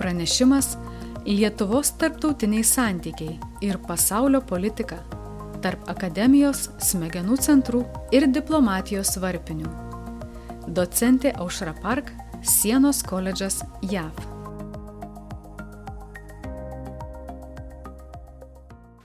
Pranešimas Lietuvos tarptautiniai santykiai ir pasaulio politika tarp akademijos, smegenų centrų ir diplomatijos varpinių. Docentė Aušra Park, Sienos koledžas JAV.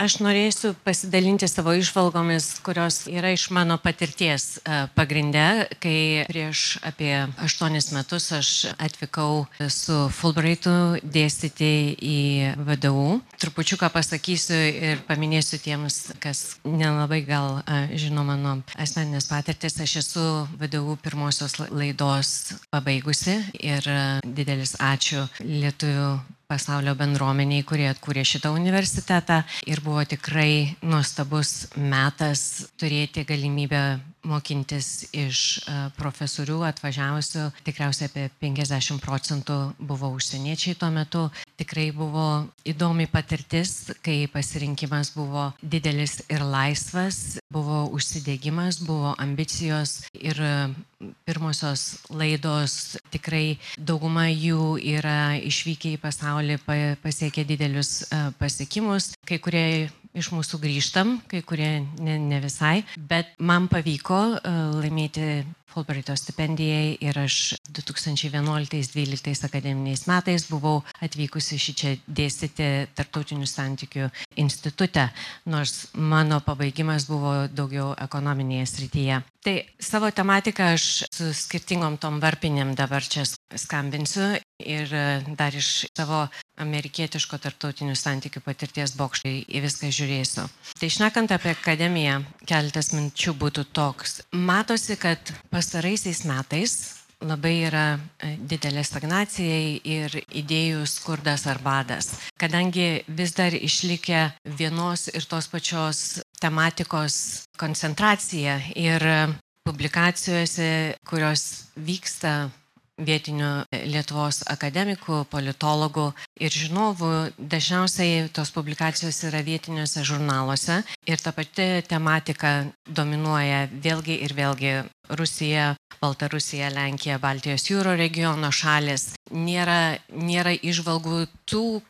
Aš norėsiu pasidalinti savo įžvalgomis, kurios yra iš mano patirties pagrinde, kai prieš apie 8 metus aš atvykau su Fulbrightu dėstyti į VDU. Trupučiuką pasakysiu ir paminėsiu tiems, kas nelabai gal žino mano asmeninės patirtis. Aš esu VDU pirmosios laidos pabaigusi ir didelis ačiū lietuvių pasaulio bendruomeniai, kurie atkūrė šitą universitetą, ir buvo tikrai nuostabus metas turėti galimybę mokintis iš profesorių atvažiavusių. Tikriausiai apie 50% buvo užsieniečiai tuo metu. Tikrai buvo įdomi patirtis, kai pasirinkimas buvo didelis ir laisvas, buvo užsidegimas, buvo ambicijos ir pirmosios laidos, tikrai dauguma jų yra išvykę į pasaulį, pasiekę didelius pasiekimus. Kai kurie iš mūsų grįžtam, kai kurie ne visai, bet man pavyko laimėti Fulbrighto stipendijai ir aš 2011-2012 akademiniais metais buvau atvykusi šičia dėstyti Tarptautinių santykių institute, nors mano pabaigimas buvo daugiau ekonominėje srityje. Tai savo tematiką aš su skirtingom tom varpinėm dabar čia skambinsiu ir dar iš savo amerikietiško tarptautinių santykių patirties bokštai į viską žiūrėsiu. Tai šnekant apie akademiją, keletas minčių būtų toks. Matosi, kad pastaraisiais metais labai yra didelė stagnacija ir idėjų skurdas ar badas. Kadangi vis dar išlikę vienos ir tos pačios tematikos koncentracija ir publikacijose, kurios vyksta vietinių Lietuvos akademikų, politologų ir žinovų, dažniausiai tos publikacijos yra vietiniuose žurnaluose ir ta pati tematika dominuoja vėlgi ir vėlgi Rusija, Baltarusija, Lenkija, Baltijos jūro regiono šalis. Nėra įžvalgų tų,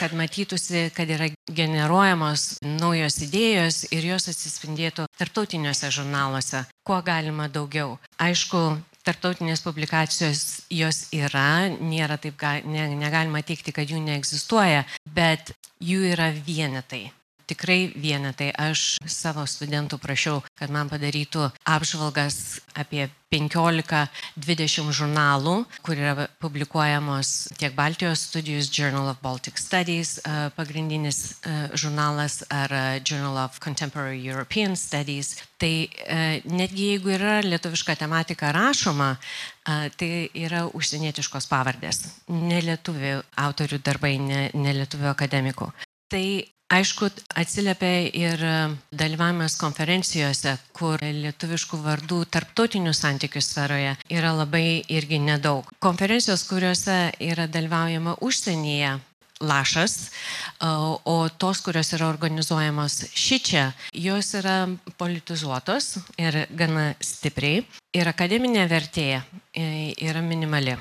kad matytųsi, kad yra generuojamos naujos idėjos ir jos atsispindėtų tarptautiniuose žurnaluose. Kuo galima daugiau. Aišku, tarptautinės publikacijos jos yra, negalima teikti, kad jų neegzistuoja, bet jų yra vienetai. Tikrai vienetai. Aš savo studentų prašiau, kad man padarytų apžvalgas apie 15-20 žurnalų, kur yra publikuojamos tiek Baltijos studijos, Journal of Baltic Studies, pagrindinis žurnalas, ar Journal of Contemporary European Studies. Tai netgi jeigu yra lietuviška tematika rašoma, tai yra užsienietiškos pavardės. Ne lietuvių autorių darbai, ne lietuvių akademikų. Tai aišku, atsiliepia ir dalyvavimas konferencijose, kur lietuviškų vardų tarptautinių santykių sferoje yra labai irgi nedaug. Konferencijos, kuriuose yra dalyvaujama užsienyje, lašas, o tos, kurios yra organizuojamos šičia, jos yra politizuotos ir gana stipriai ir akademinė vertė yra minimali.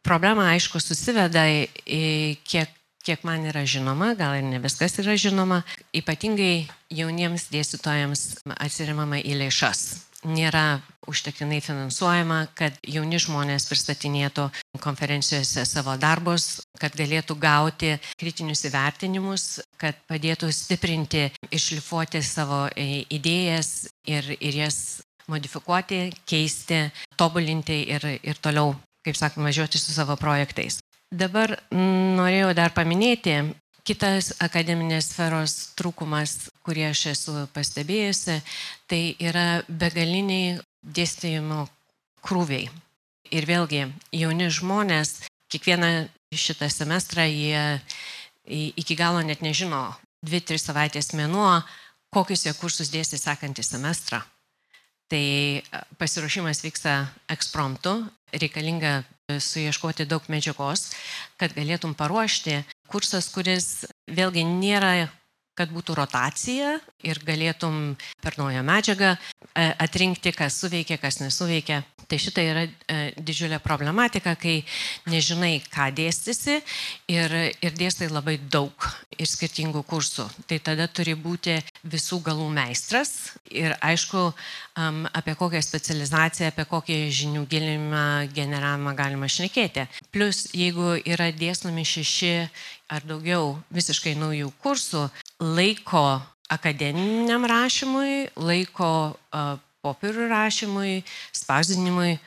Problema, aišku, susiveda į kiek man yra žinoma, gal ir ne viskas yra žinoma, ypatingai jauniems dėstytojams atsiremama į lėšas. Nėra užtektinai finansuojama, kad jauni žmonės pristatinėtų konferencijose savo darbus, kad galėtų gauti kritinius įvertinimus, kad padėtų stiprinti, iššlifuoti savo idėjas ir jas modifikuoti, keisti, tobulinti ir toliau, kaip sakoma, važiuoti su savo projektais. Dabar norėjau dar paminėti kitas akademinės sferos trūkumas, kurį aš esu pastebėjusi, tai yra begaliniai dėstymo krūviai. Ir vėlgi, jauni žmonės, kiekvieną šitą semestrą jie iki galo net nežino 2-3 savaitės mėnuo, kokius jie kursus dėstys sekantį semestrą. Tai pasiruošimas vyksta ekspromtu, reikalinga suieškoti daug medžiagos, kad galėtum paruošti kursas, kuris vėlgi nėra kad būtų rotacija ir galėtum per naują medžiagą atrinkti, kas suveikia, kas nesuveikia. Tai šita yra didžiulė problematika, kai nežinai, ką dėstysi ir dėstai labai daug ir skirtingų kursų. Tai tada turi būti visų galų meistras ir aišku, apie kokią specializaciją, apie kokį žinių gilinimą, generavimą galima šnekėti. Plus, jeigu yra dėstomi 6 ar daugiau visiškai naujų kursų, laiko akademiniam rašymui, laiko popierių rašymui, spausdinimui,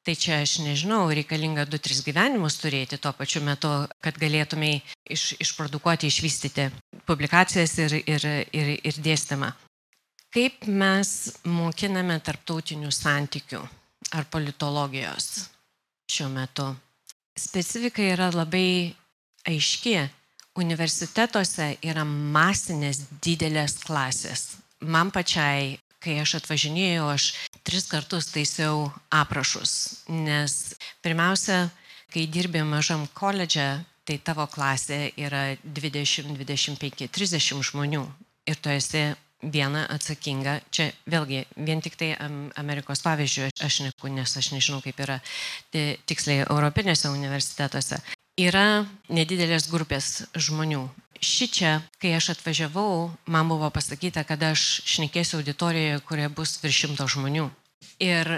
tai čia aš nežinau, reikalinga 2-3 gyvenimus turėti tuo pačiu metu, kad galėtumai išprodukuoti, išvystyti publikacijas ir dėstymą. Kaip mes mokiname tarptautinių santykių ar politologijos šiuo metu? Specifika yra labai aiški. Universitetuose yra masinės didelės klasės. Man pačiai, kai aš atvažinėjau, aš 3 kartus taisiau aprašus, nes pirmiausia, kai dirbi mažam koledže, tai tavo klasė yra 20, 25, 30 žmonių ir tu esi viena atsakinga. Čia vėlgi, vien tik tai Amerikos pavyzdžių aš neku, nes aš nežinau, kaip yra tiksliai europinėse universitetuose. Yra nedidelės grupės žmonių. Šičia, kai aš atvažiavau, man buvo pasakyta, kad aš šnekėsiu auditorijoje, kurioje bus virš 100 žmonių. Ir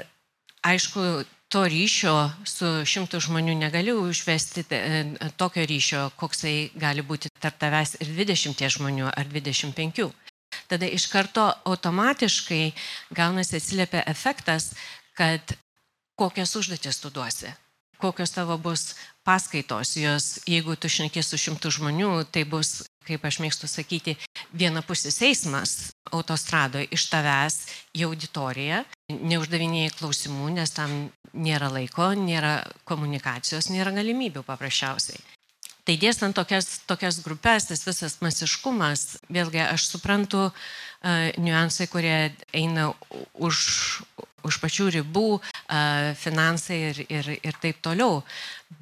aišku, to ryšio su 100 žmonių negaliu užvesti tokio ryšio, koksai gali būti tarp tavęs ir 20 žmonių ar 25. Tada iš karto automatiškai gaunasi atsiliepia efektas, kad kokias užduotis tu duosi, kokios tavo bus paskaitos, jos, jeigu tu šnekės su 100 žmonių, tai bus, kaip aš mėgstu sakyti, vienapusis eismas autostradoje iš tavęs į auditoriją, neuždavinėjai klausimų, nes tam nėra laiko, nėra komunikacijos, nėra galimybių paprasčiausiai. Tai dėstant tokias grupės, tas visas masiškumas, vėlgi aš suprantu niuansai, kurie eina už pačių ribų, finansai ir taip toliau.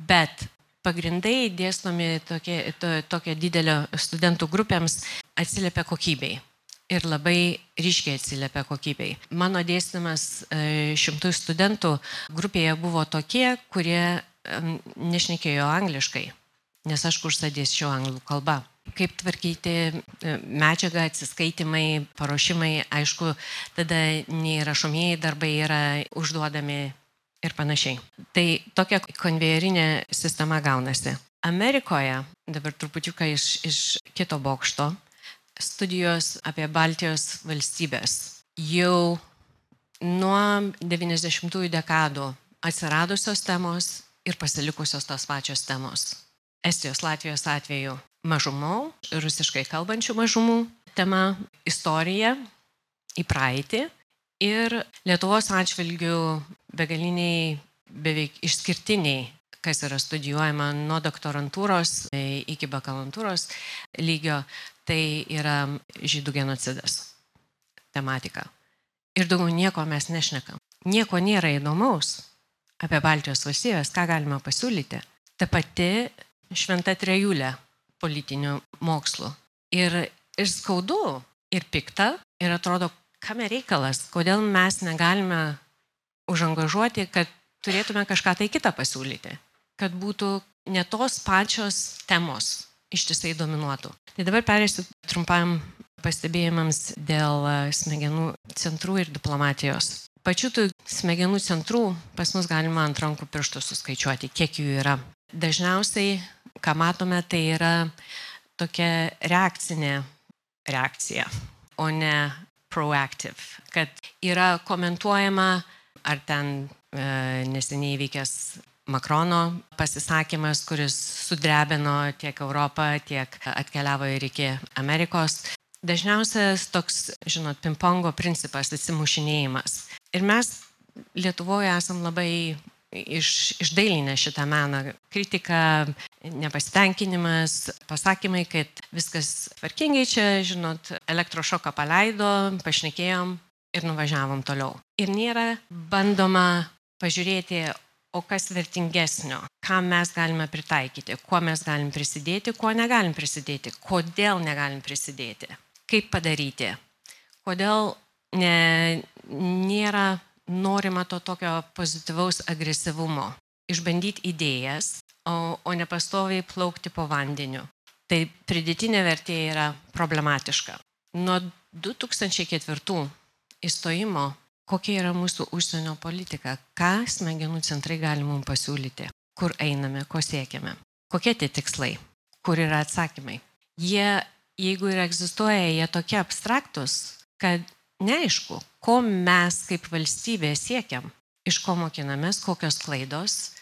Bet pagrindai dėstomi tokia didelio studentų grupėms atsiliepia kokybei. Ir labai ryškiai atsiliepia kokybei. Mano dėstymas 100 studentų grupėje buvo tokie, kurie nešnekėjo angliškai, nes aš kursą dėsčiau anglų kalba. Kaip tvarkyti medžiagą, atsiskaitimai, paruošimai, aišku, tada nei rašomieji darbai yra užduodami ir panašiai. Tai tokia konvejerinė sistema gaunasi. Amerikoje, dabar trupučiuką iš kito bokšto, studijos apie Baltijos valstybės. Jau nuo 90-ųjų dekadų atsiradusios temos ir pasilikusios tos pačios temos. Estijos, Latvijos atveju mažumų, rusiškai kalbančių mažumų tema, istorija į praeitį ir Lietuvos atžvilgių begaliniai, beveik išskirtiniai, kas yra studijuojama nuo doktorantūros iki bakalantūros lygio, tai yra žydų genocidas tematika. Ir daugiau nieko mes nešnekam. Nieko nėra įdomaus apie Baltijos valstybės, ką galima pasiūlyti. Ta pati šventa trejulė politinių mokslų. Ir skaudu, ir pikta, ir atrodo, kame reikalas, kodėl mes negalime užangažuoti, kad turėtume kažką tai kitą pasiūlyti, kad būtų ne tos pačios temos ištisai dominuotų. Tai dabar perėsiu trumpam pastebėjimams dėl smegenų centrų ir diplomatijos. Pačių tų smegenų centrų pas mus galima ant rankų pirštų suskaičiuoti, kiek jų yra. Dažniausiai, ką matome, tai yra tokia reakcinė reakcija, o ne proactive, kad yra komentuojama, ar ten neseniai įvykęs Makrono pasisakymas, kuris sudrebino tiek Europą, tiek atkeliavo ir iki Amerikos. Dažniausias toks, žinot, pingpongo principas, atsimušinėjimas. Ir mes Lietuvoje esam labai išdailinę šitą meną. Kritika, nepasitenkinimas, pasakymai, kad viskas tvarkingai čia, žinot, elektrošoką paleido, pašnekėjom ir nuvažiavom toliau. Ir nėra bandoma pažiūrėti, o kas vertingesnio. ką mes galime pritaikyti, kuo mes galim prisidėti, kuo negalim prisidėti, kodėl negalim prisidėti, kaip padaryti, kodėl nėra norima to tokio pozityvaus agresyvumo, išbandyti idėjas, o ne pastoviai plaukti po vandeniu. Tai pridėtinė vertė yra problematiška. Nuo 2004 įstojimo, kokia yra mūsų užsienio politika, ką smegenų centrai gali mums pasiūlyti, kur einame, ko siekiame, kokie tie tikslai, kur yra atsakymai. Jie, jeigu ir egzistuoja, jie tokie abstraktus, kad neaišku, ko mes kaip valstybė siekiam, iš ko mokinamės, kokios klaidos,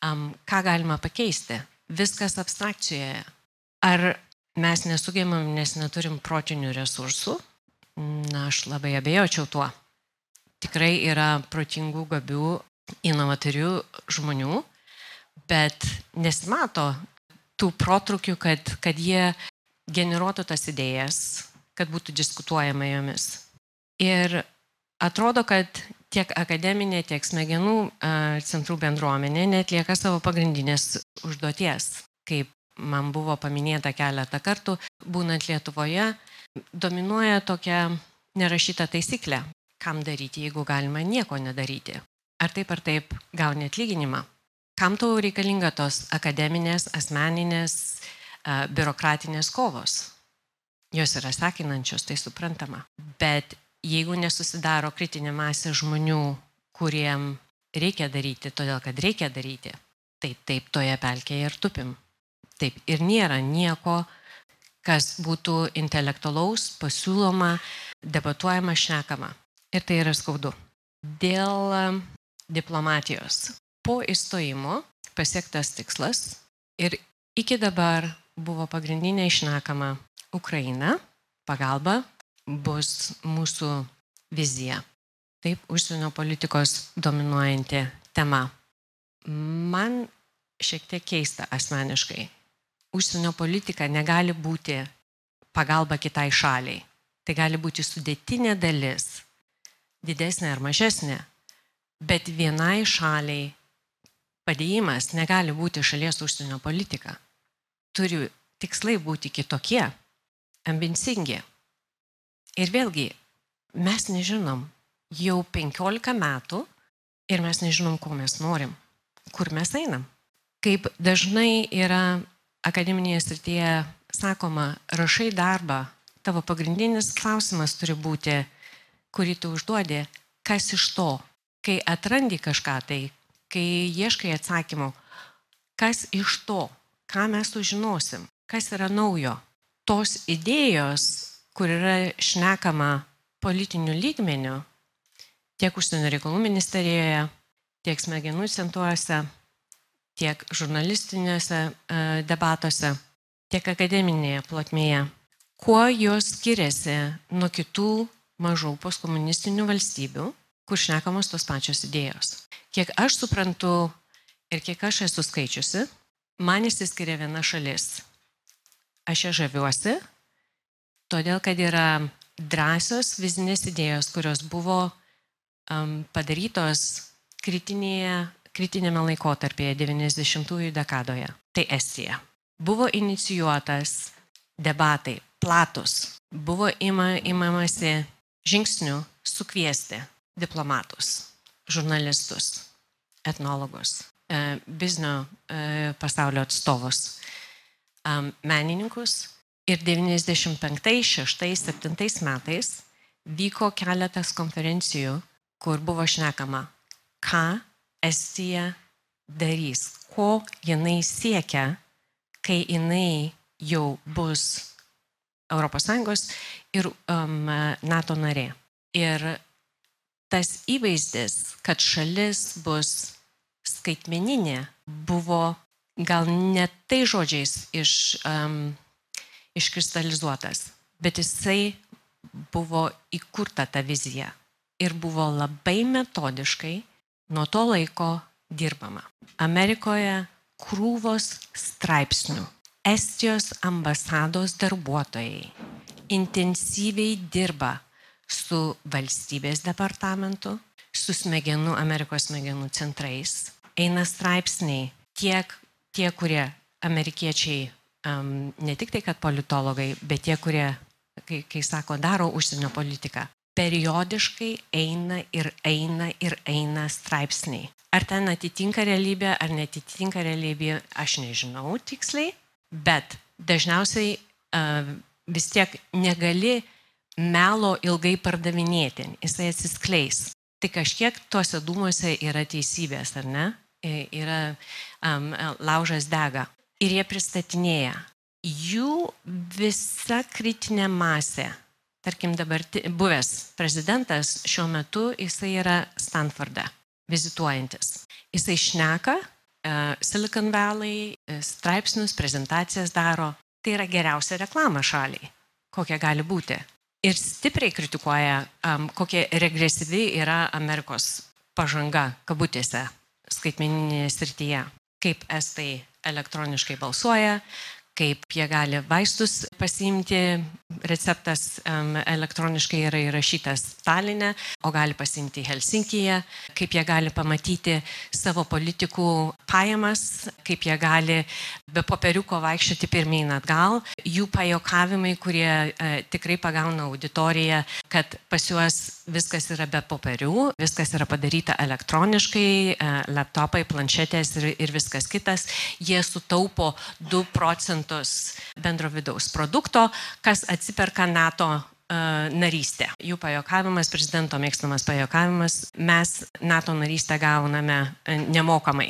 ką galima pakeisti. Viskas abstrakcijoje. Ar mes nesugebam, nes neturim protinių resursų? Na, aš labai abejočiau tuo. Tikrai yra protingų, gabių, inovatorių žmonių, bet nesimato tų protrukių, kad jie generuotų tas idėjas, kad būtų diskutuojama jomis. Ir atrodo, kad tiek akademinė, tiek smegenų centrų bendruomenė netlieka savo pagrindinės užduoties. Kaip man buvo paminėta keletą kartų, būnant Lietuvoje, dominuoja tokia nerašyta taisyklė, kam daryti, jeigu galima nieko nedaryti. Ar taip gauni atlyginimą? Kam tau reikalinga tos akademinės, asmeninės, biurokratinės kovos? Jos yra sekinančios, tai suprantama. Bet jeigu nesusidaro kritinė masė žmonių, kuriem reikia daryti, todėl kad reikia daryti, tai taip toje pelkėje ir tupim. Taip, ir nėra nieko, kas būtų intelektualaus, pasiūloma, debatuojama, šnekama. Ir tai yra skaudu. Dėl diplomatijos. Po įstojimo pasiektas tikslas ir iki dabar buvo pagrindinė šnekama Ukraina, pagalba bus mūsų vizija. Taip, užsienio politikos dominuojanti tema. Man šiek tiek keista asmeniškai. Užsienio politika negali būti pagalba kitai šaliai. Tai gali būti sudėtinė dalis, didesnė ar mažesnė, bet vienai šaliai padėjimas negali būti šalies užsienio politika. Turi tikslai būti kitokie, ambicingi. Ir vėlgi, mes nežinom jau 15 metų ir mes nežinom, ko mes norim, kur mes einam. Kaip dažnai yra akademinėje srityje sakoma, rašai darbą, tavo pagrindinis klausimas turi būti, kurį tu užduodi, kas iš to, kai atrandi kažką tai, kai ieškai atsakymų, kas iš to, ką mes sužinosim, kas yra naujo. Tos idėjos, kur yra šnekama politiniu lygmeniu, tiek užsienio reikalų ministerijoje, tiek smegenų centruose, tiek žurnalistinėse debatuose, tiek akademinėje plotmėje, kuo jos skiriasi nuo kitų mažų postkomunistinių valstybių, kur šnekamos tos pačios idėjos. Kiek aš suprantu ir kiek aš esu skaičiusi, man išsiskiria viena šalis. Aš ją žaviuosi, todėl kad yra drąsios vizinės idėjos, kurios buvo padarytos kritinėme laikotarpyje 90-ųjų dekadoje. Tai Estija. Buvo inicijuotas debatai, platus. Buvo imamasi žingsnių sukviesti diplomatus, žurnalistus, etnologus, biznio pasaulio atstovus, menininkus. Ir 95, 6, 7 metais vyko keletas konferencijų, kur buvo šnekama, ką Estija darys, ko jinai siekia, kai jinai jau bus ES ir NATO narė. Ir tas įvaizdis, kad šalis bus skaitmeninė, buvo gal ne tai žodžiais iškristalizuotas, bet jisai buvo įkurta ta vizija ir buvo labai metodiškai nuo to laiko dirbama. Amerikoje krūvos straipsnių. Estijos ambasados darbuotojai intensyviai dirba su valstybės departamentu, su Amerikos smegenų centrais. Eina straipsniai tiek tie, kurie amerikiečiai, ne tik tai, kad politologai, bet tie, kurie, kai sako, daro užsienio politiką, periodiškai eina straipsniai. Ar ten atitinka realybė, ar netitinka realybė, aš nežinau tiksliai, bet dažniausiai vis tiek negali melo ilgai pardavinėti, jisai atsiskleis. Tai kažkiek tuose dūmuose yra teisybės, ar ne? Yra laužas dega. Ir jie pristatinėja. Jų visa kritinė masė, tarkim dabar buvęs prezidentas, šiuo metu jisai yra Stanforde, vizituojantis. Jisai šneka, Silicon Valley, straipsnius, prezentacijas daro. Tai yra geriausia reklama šaliai, kokia gali būti. Ir stipriai kritikuoja, kokia regresyvi yra Amerikos pažanga, kabutėse, skaitmeninėje srityje. Kaip estai elektroniškai balsuoja, kaip jie gali vaistus pasiimti, receptas elektroniškai yra įrašytas Taline, o gali pasiimti Helsinkyje, kaip jie gali pamatyti savo politikų pajamas, kaip jie gali be popieriuko vaikščioti pirmyn atgal, jų pajokavimai, kurie tikrai pagauna auditoriją, kad pas juos viskas yra be popierių, viskas yra padaryta elektroniškai, laptopai, planšetės ir viskas kitas, jie sutaupo 2% bendro vidaus produkto, kas atsiperka NATO narystę. Jų pajokavimas, prezidento mėgstamas pajokavimas, mes NATO narystę gauname nemokamai.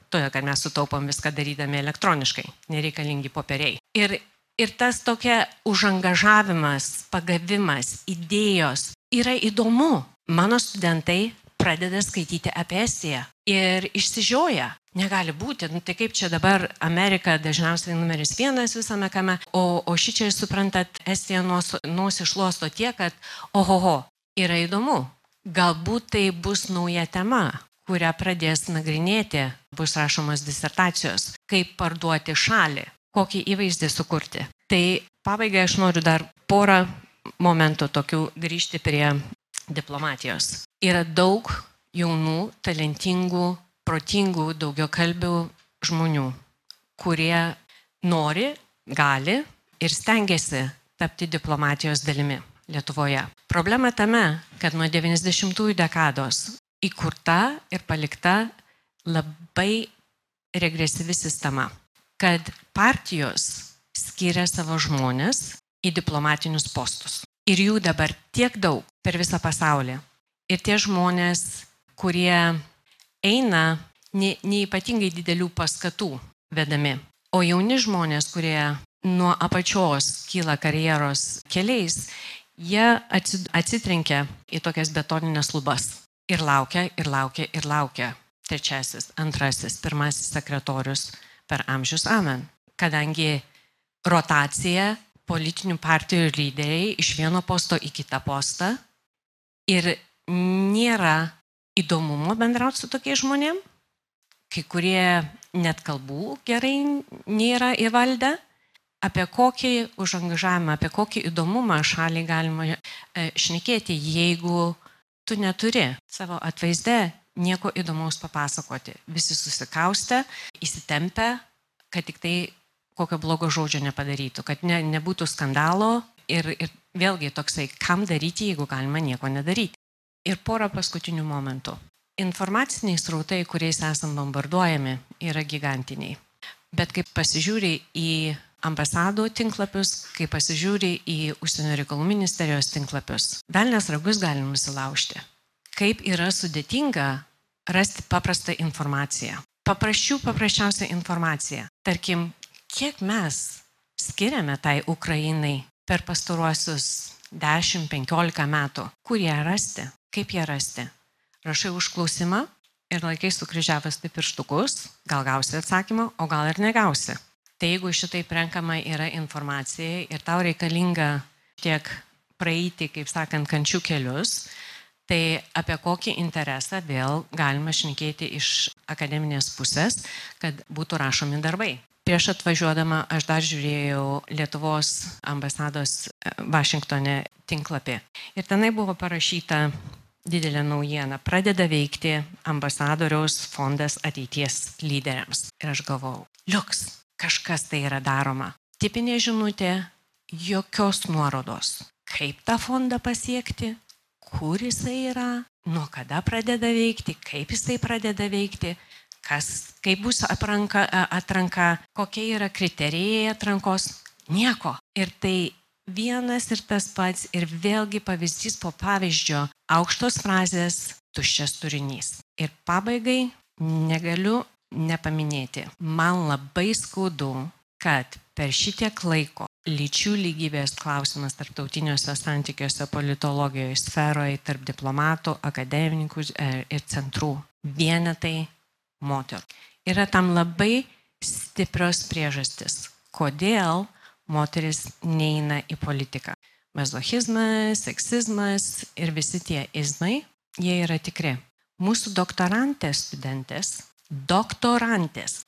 Todėl, kad mes sutaupom viską darydami elektroniškai, nereikalingi popieriai. Ir tas tokia užangažavimas, pagavimas, idėjos yra įdomu. Mano studentai pradeda skaityti apie Estiją ir išsižioja. Negali būti, tai kaip čia dabar Amerika dažniausiai numeris 1 visame kame, o šičia, suprantat, Estija nosį šluosto tiek, kad ohoho, yra įdomu. Galbūt tai bus nauja tema, kurią pradės nagrinėti, bus rašomos disertacijos, kaip parduoti šalį, kokį įvaizdį sukurti. Tai pabaigai aš noriu dar porą momentų tokių grįžti prie diplomatijos. Yra daug jaunų, talentingų, protingų, daugiakalbių žmonių, kurie nori, gali ir stengiasi tapti diplomatijos dalimi Lietuvoje. Problema tame, kad nuo 90-ųjų dekados įkurta ir palikta labai regresyvi sistema, kad partijos skiria savo žmonės į diplomatinius postus. Ir jų dabar tiek daug per visą pasaulį. Ir tie žmonės, kurie eina neįpatingai didelių paskatų vedami. O jauni žmonės, kurie nuo apačios kyla karjeros keliais, jie atsitrenkia į tokias betoninės lubas. Ir laukia, ir laukia, ir laukia. Trečiasis, antrasis, pirmasis sekretorius per amžius amen. Kadangi rotacija politinių partijų lyderiai iš vieno posto į kitą postą ir nėra įdomumo bendrauti su tokiais žmonėm, kai kurie net kalbų gerai nėra įvaldę, apie kokį užangažavimą, apie kokį įdomumą šaliai galima šnekėti, jeigu tu neturi savo atvaizde nieko įdomaus papasakoti. Visi susikaustę, įsitempę, kad tik tai kokio blogo žodžio nepadarytų, kad nebūtų skandalo ir vėlgi toksai, kam daryti, jeigu galima nieko nedaryti. Ir porą paskutinių momentų. Informaciniai srautai, kuriais esam bombarduojami, yra gigantiniai. Bet kai pasižiūri į ambasadų tinklapius, kai pasižiūri į užsienio reikalų ministerijos tinklapius, velnias ragus galim nusilaužti. Kaip yra sudėtinga rasti paprastą informaciją. Paprasčiausią informaciją. Tarkim, kiek mes skiriame tai Ukrainai per pastaruosius 10-15 metų, kur ją rasti? Kaip ją rasti? Rašai užklausimą ir laikai sukryžiavęs tai pirštukus, gal gausi atsakymą, o gal ir negausi. Tai jeigu šitaip renkama yra informacija ir tau reikalinga tiek praeiti, kaip sakant, kančių kelius, tai apie kokį interesą vėl galima šnekėti iš akademinės pusės, kad būtų rašomi darbai. Prieš atvažiuodama aš dar žiūrėjau Lietuvos ambasados Vašingtone tinklapį. Ir tenai buvo parašyta didelė naujiena. Pradeda veikti ambasadoriaus fondas ateities lyderiams. Ir aš galvojau, liuks, kažkas tai yra daroma. Tipinė žinutė, jokios nuorodos. Kaip tą fondą pasiekti, kur jisai yra, nuo kada pradeda veikti, kaip jisai pradeda veikti, kaip bus atranka, kokie yra kriterijai atrankos. Nieko. Ir tai vienas ir tas pats ir vėlgi pavyzdys po pavyzdžio, aukštos frazės, tuščias turinys. Ir pabaigai negaliu nepaminėti. Man labai skaudu, kad per šitiek laiko lyčių lygybės klausimas tarptautiniuose santykiuose, politologijoje, sferoje, tarp diplomatų, akademininkų ir centrų vienetai moterų. Yra tam labai stiprios priežastis, kodėl moteris neina į politiką. Mazochizmas, seksizmas ir visi tie izmai, jie yra tikri. Mūsų doktorantės studentės,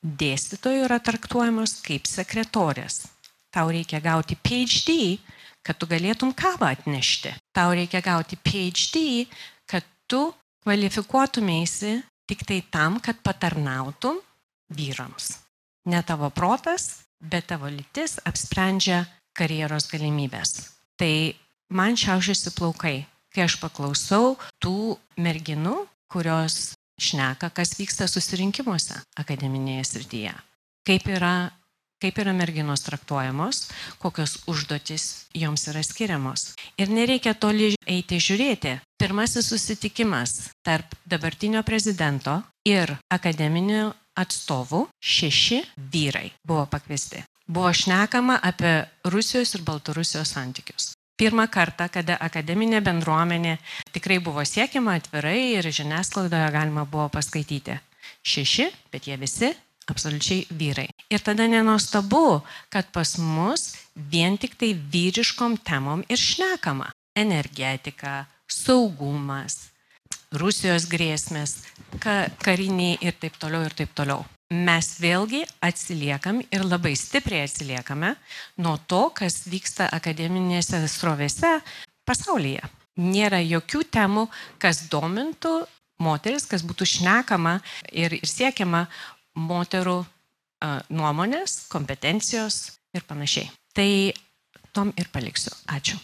dėstytojų yra traktuojamos kaip sekretorės. Tau reikia gauti PhD, kad tu galėtum kavą atnešti. Tau reikia gauti PhD, kad tu kvalifikuotumėsi tik tai tam, kad patarnautum vyrams. Ne tavo protas, bet tavo lytis apsprendžia karjeros galimybės. Tai man šiaušiasi plaukai, kai aš paklausau tų merginų, kurios šneka, kas vyksta susirinkimuose akademinėje srityje. Kaip yra merginos traktuojamos, kokios užduotis joms yra skiriamos. Ir nereikia toli eiti žiūrėti. Pirmasis susitikimas tarp dabartinio prezidento ir akademinių atstovų 6 vyrai buvo pakviesti. Buvo šnekama apie Rusijos ir Baltarusijos santykius. Pirmą kartą, kada akademinė bendruomenė tikrai buvo siekiama atvirai ir žiniasklaidoje galima buvo paskaityti. 6, bet jie visi absoliučiai vyrai. Ir tada nenuostabu, kad pas mus vien tik tai vyriškom temom ir šnekama. Energetika, saugumas, Rusijos grėsmės, kariniai ir taip toliau ir taip toliau. Mes vėlgi atsiliekam ir labai stipriai atsiliekame nuo to, kas vyksta akademinėse srovėse pasaulyje. Nėra jokių temų, kas domintų moteris, kas būtų šnekama ir siekiama moterų nuomonės, kompetencijos ir panašiai. Tai tom ir paliksiu. Ačiū.